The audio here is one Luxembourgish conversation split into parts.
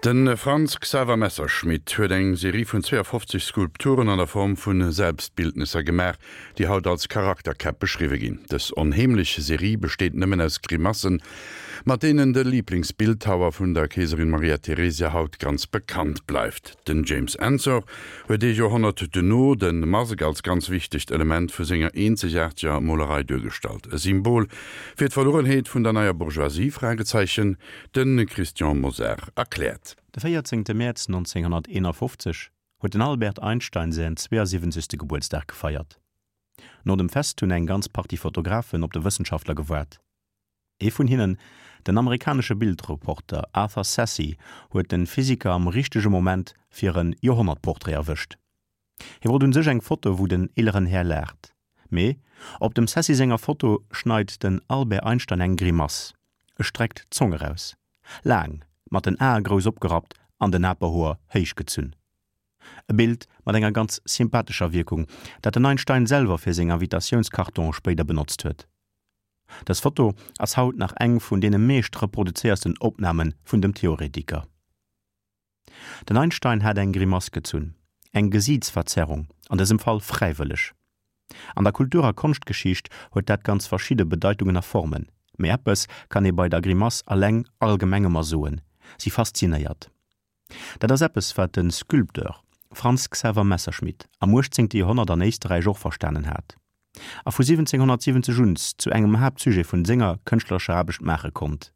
De Franz Xaver Messerschmitt huet eng Serie vun 52 Skulpturen an der Form vu Selbstbildnesser gemaach, déi haut als Charakterkäpp beschriwwe ginn. Dës onheemlech Serie besteet nëmmen aus Grimassen, mat deenen de Liiblingsbildhauer vun der Keeserin Maria Theresia haut ganz bekannt bleift. Den James Ensor huet ee Joerhonnert duerno de Mask als ganz wichtegt Element vu senger eenzegaarteger Molerei duergestallt, e Symbol fir d'Verluerenheet vun der neier Bourgeoisie? Fragezeichen. De Christian Mosar erkläert. De 14 Mäerz 1951 huet den Albert Einstein säin 72. Gebuertsdag gefeiert. No dem Fest hunn eng ganz Partie Fotografen op de Wëssenschaftler gewaart. Ee vun hinnen, den amerikanesche Bildreporter Arthur Sassy, huet de Physiker am richtege Moment fir en Joerhonnertportrait erwëscht. Hie wollt un sech eng Foto wou den eeleren Här laacht. Mee op dem Sassy senger Foto schneit den Albert Einstein eng Grimass, e streckt d'Zong eraus, laang, mat den Ae grouss opgerappt an den Aperhoer héich gezunn. E Bild mat enger ganz sympathescher Wierkung, dat den Einstein selwer fir seng Invitatiounskartonen spéider benotzt huet. Dës Foto ass haut nach eng vun deene meescht reproduzéiersten Opname vun dem Theoretiker. Den Einstein hat eng Grimass gezunn, eng Gesiitsverzerrung, an dësem Fall fräiwëlleg. An der Kultur a Konschtgeschicht huet dat ganz verschidde Bedeitungen a Formen, mee eppes kann ee bei der Grimass alleng allgemeng ëmmer soen, si faszinéiert. Dat ass eppes, wat de Sculpteur Franz Xaver Messerschmitt am 18. Joerhonnert an Éisterräich och verstanen hat a vu 1770 un zu engem Haaptsujet vun senger kënschtlerescher Aarbecht maache konnt.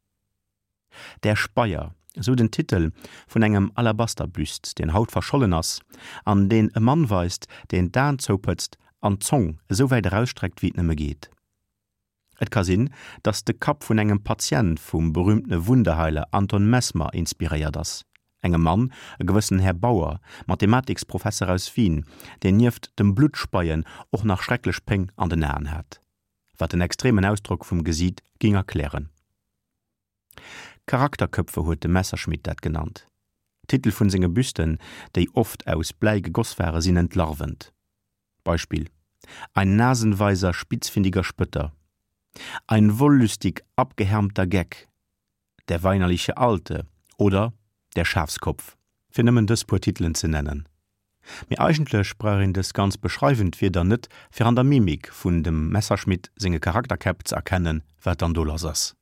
Der Speier, esou den Titel vun engem Alabasterbüst, deen haut verschollen ass an deen e Mann weist, deen d'Aen zoupëtzt an d'Zong esou wäit erausstreckt, wéi et nëmme geet. Et ka sinn, datt de Kapp vun engem Patient vum berüümtene Wunderheiler Anton Mesmer inspiréiert ass, engem Mann, e gewëssenen Här Bauer, Mathematiksprofesser aus Wien, deen nieft dem Bluttspeien och nach schrecklech Péng an den Aen hat, wat den extremen Ausdrock vum Gesiit géing erklären. Charakterköpfe huet de Messerschmitt dat genannt. D'Titel vun senge Büsten, déi oft aus Bläi gegoss ware sinn entlarvend. Beispill, Ein nasenweiser spitzfindiger Spötter, Ein wollüstig abgehärmter Geck, Der weinerliche Alte oder Der Schafskopf, fir nëmmen dës puer Titelen ze nennen. Mee eigentlech brauch een dës ganz beschreiwend Wierder net, fir an der Mimik vun dem Messerschmitt senge Charakterkäpp ze erkennen, wat dann do lass ass.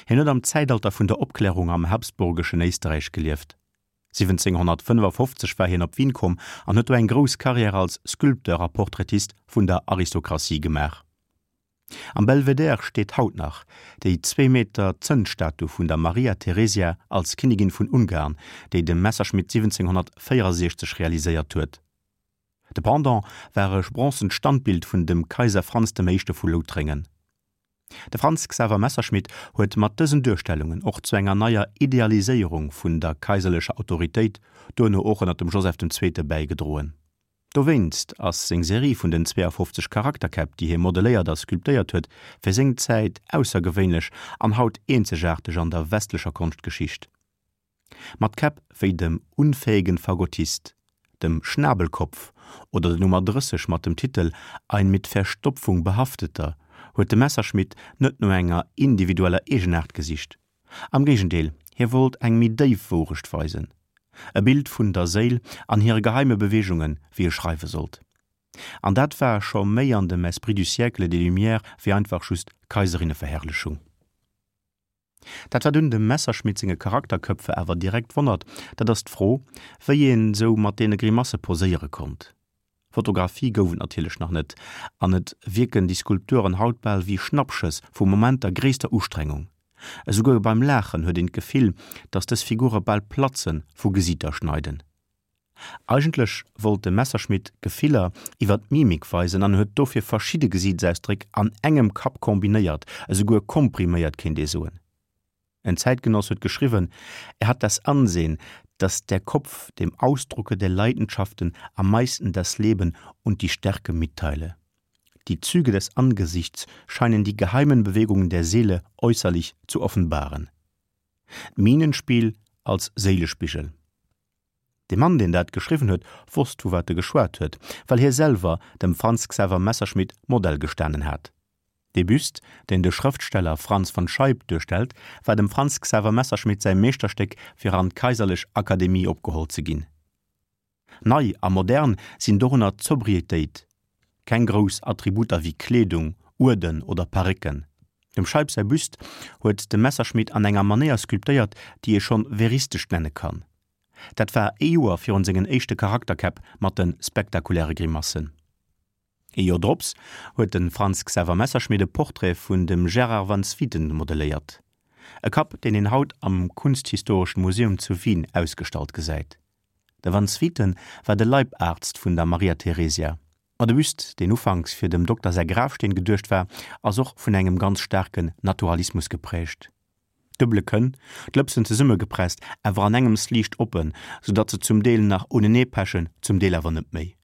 Hien huet am Zäitalter vun der Opklärung am habsburgeschen Éisterräich gelieft. 1755 war hien op Wien komm an huet do eng grouss Karriär als Sculpteur a Portraitist vun der Aristokratie gemaach. Am Belvedere steet haut nach déi zwee Meter Zënnstatu vun der Maria Theresia als Kinnigin vun Ungarn, déi de Messerschmitt 1764 realiséiert huet. De Pendant war e bronzent Standbild vun dem Kaiser Franz dem Éischte vu Loutréngen. De Franz Xaver Messerschmitt huet mat dësen Duerstellungen och zu enger neier Idealiséierung vun der kaiserlecher Autoritéit, duerno och ënner dem Joseph den Zweete bäigedroen. Dowéinst ass seng Serie vun den 52 Charakterkäpp, déi hie modeléiert a sculptéiert huet, fir seng Zäit aussergewéinlech an haut eenzegaarteg an der westlecher Konschtgeschicht. Mat Käpp wéi dem Unfähigen Fagottist, dem Schnabelkopf oder der Nummer 30 mat dem Titel Ein mit Verstopfung behafteter huet de Messerschmitt net no enger individueller Eegenaart gesicht. Am Géigendeel, hie wollt eng méi déif Wourecht weisen, e Bild vun der Séil an hire geheime Beweegungen, wéi e schreiwe sollt. An dat war scho méi an dem Esprit du siècle des Lumières wéi einfach just Kaiserinneverherrlechung. Dat wat un dem Messerschmitt senge Charakterköpfe awer direkt wonnert, dat ass d'Fro, wéi een sou mat deene Grimasse poséiere konnt. Fotografie gouf et natierlech nach net, an et wierken déi Skulpturen haut bal wéi Schnappschëss vu Momenter gréisster Ustrengung. Esouguer beim Laachen huet een d'Gefill, datt dës Figure bal platzen vu Gesiiter schneiden. Eigentlech wollt de Messerschmitt Gefiller iwwer d'Mimik weisen an huet dofir verschidde Gesiitsausdréck an engem Kapp kombinéiert, esouguer kompriméiert kéint ee soen. En Zäitgenoss huet geschriwwen, er hat das Ansehen, dass der Kopf dem Ausdrucke der Leidenschaften am meisten das Leben und die Stärke mitteile. Die Züge des Angesichts scheinen die geheimen Bewegungen der Seele äußerlich zu offenbaren. D'Mienenspiel als Séilespigel. De Mann, deen dat geschriwwen huet, wosst vu wat e geschwat huet, well hie selwer dem Franz Xaver Messerschmitt Modell gestanen hat. Dee Büst, deen de Schrëftsteller Franz von Scheib duerstellt, war dem Franz Xaver Messerschmitt säi Meeschterstéck fir an d'Kaiserlech Akademie opgeholl ze ginn. Nei a modern sinn dorunner d'Sobrietéit, keng grouss Attributer wéi Kleedung, Uerden oder Parécken. Dem Scheib säi Büst huet de Messerschmitt an enger Manéier sculptéiert, déi ee schonn veristesch nenne kann. Dat war ee Joer virun sengen éischte Charakterkäpp mat de spektakuläre Grimassen. Ee Joer drops huet de Franz Xaver Messerschmitt e Portrait vun dem Gerard van Swieten modelléiert. E Kapp, deen een haut am Kunsthistoreschen Museum zu Wien ausgestallt gesäit. De van Swieten war de Leibarzt vun der Maria Theresia. Ma de Büst, deen ufanks fir dem Dokter säi Grafsteen geduecht war, ass och vun engem ganz staarken Naturalismus geprägt. Duebele Kënn, d'Lëpsen zesummegepresst, awer an engems liicht oppen, sou datt se zum Deel nach unenee pechen, zum Deel awer net méi.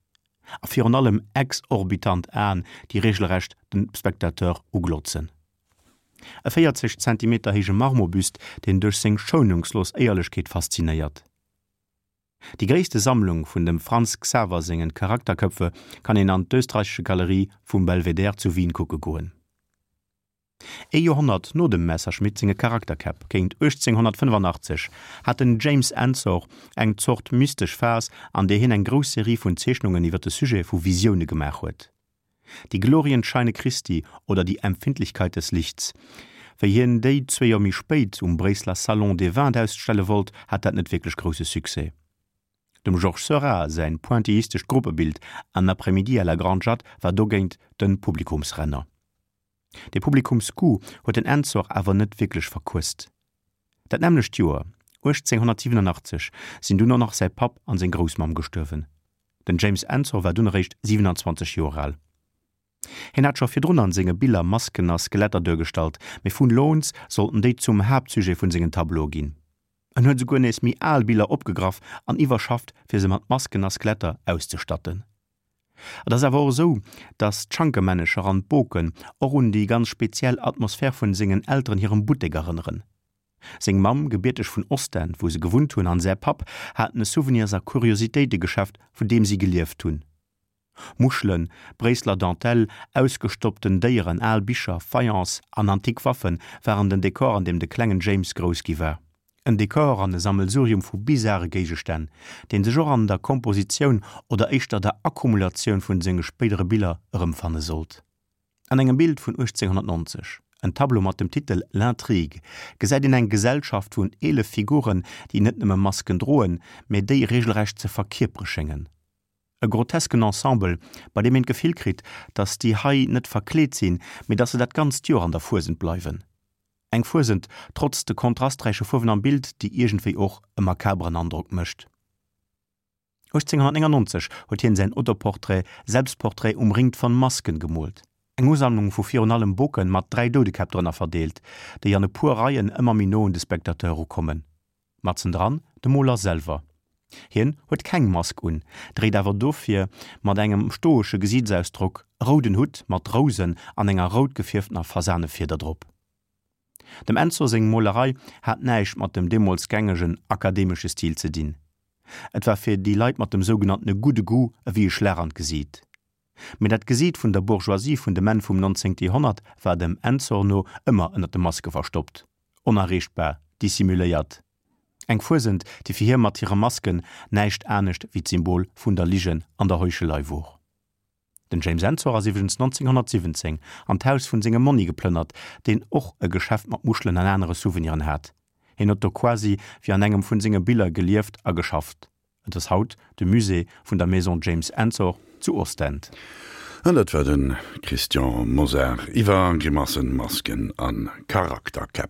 A virun allem exorbitant Aen, déi regelrecht den Spectateur uglotzen. E 40 Zentimeter héije Marmorbuste, deen duerch seng schounungslos Éierlechkeet faszinéiert. Déi gréisste Sammlung vun dem Franz Xaver sengen Charakterköpfe kann een an d'Österreichische Galerie vum Belvedere zu Wien kucke goen. Ee Joerhonnert no dem Messerschmitt senge Charakterkäpp, géint 1885, hat den James Ensor eng Zort mystesch Phas, an där hien eng grouss Serie vun Zeechnungen iwwer de Sujet vu Visioune gemaach huet. Die Glorienscheine Christi oder Die Empfindlichkeit des Lichts. Wéi hien déi zwee Joer méi spéit um Bréisseler Salon des Vins ausstelle wollt, hat dat net wierklech grousse Succès. Dem Georges Seurat säin pointillistescht Gruppebild Un après-midi à la Grande Jatte war dogéint de Publikumsrenner. De Publikumsgoût huet den Ensor awer net wierklech verquësst. Dat nämmlecht Joer, 1887, sinn dunn och nach säi Papp an seng Groussmamm gestuerwen. Den James Ensor war dunn eréischt 27 Joer al. Hien hat scho virdrun an senge Biller Masken a Skeletter duergestallt, mee vun elo un sollten déi zum Haaptsujet vun sengen Tableaue ginn. En huet esouguer nees méi al Biller opgegraff an iwwerschafft fir se mat Masken a Skeletter auszestatten. Et ass awer och esou, datt d'Schankenmännecher an d'Boken och un déi ganz speziell Atmosphär vun sengen Elteren hirem Buttek erënneren. Seng Mamm, gebierteg vun Ostend, wou se gewunnt hunn, an säi Papp haten e Souvenirs a Kuriositéitegeschäft, vun deem si gelieft hunn. Muschelen, Bréisseler Dentelle, ausgestoppten Déieren, al Bicher, Faience an antik Waffe waren den Dekor, an deem de klengen James grouss gi war. En Dekor an e Sammelsurium vu bizare Géigestänn, deen sech och an der Kompositioun oder éischter der Akkumulatioun vun senge spéidere Biller erëmfanne sollt. An engem Bild vun 1890, en Tableau mat dem Titel L'intrigue, gesäit een eng Gesellschaft vun 11 Figuren, déi net nëmme Masken droen, mä déi regelrecht ze verkierpere schéngen. E grotesken Ensemble, bei deem een d'Gefill kritt, datt déi hei net verkleet sinn, mee datt se dat ganzt Joer an der Fuesent bleiwen. Eng Fuesent, trotz de kontrasträiche Fuerwen am Bild, déi iergendwéi och e makaberen Androck mécht. 1899 huet hien säin Autoportrait Selbstporträt umringt von Masken gemoolt, eng Usammlung vu virun allem Boken mat 3 Doudekäpp drënner verdeelt, déi an e puer Reien ëmmer méi no un de Spectateur erukommen. Matzendran de Moler selwer. Hien huet keng Mask un, dréit awer dofir mat engem stoesche Gesiitsausdrock e rouden Hutt mat Rousen an enger rout gefierftener Fasanefieder drop. Dem Ensor seng Molerei hat näischt mat dem deemools gängegen akademesche Stil ze dinn. Et war fir déi Leit mat dem sougenanntene gudde Goût ewéi e Schlag an d'Gesiit. Mee dat Gesiit vun der Bourgeoisie vun dem Enn vum 19. Joerhonnert war dem Ensor no ëmmer ënner de Maske verstoppt, onerreechtbar, dissimuléiert. Eng Fuesent, déi fir hie mat hire Masken näischt anescht wéi d'Symbol vun der Ligen an der Heuchelei wor. Den James Ensor ass iwwregens 1917 an d'Haus vun sengem Monni geplënnert, deen och e Geschäft mat Muschelen an anere Souveniren hat. Hien huet do quasi wéi an engem vun senge Biller gelieft a geschafft. Et ass haut de Musée vun der Maison James Ensor zu Ostend. An dat war de Christian Mosar iwwer Grimassen, Masken a Charakterkäpp.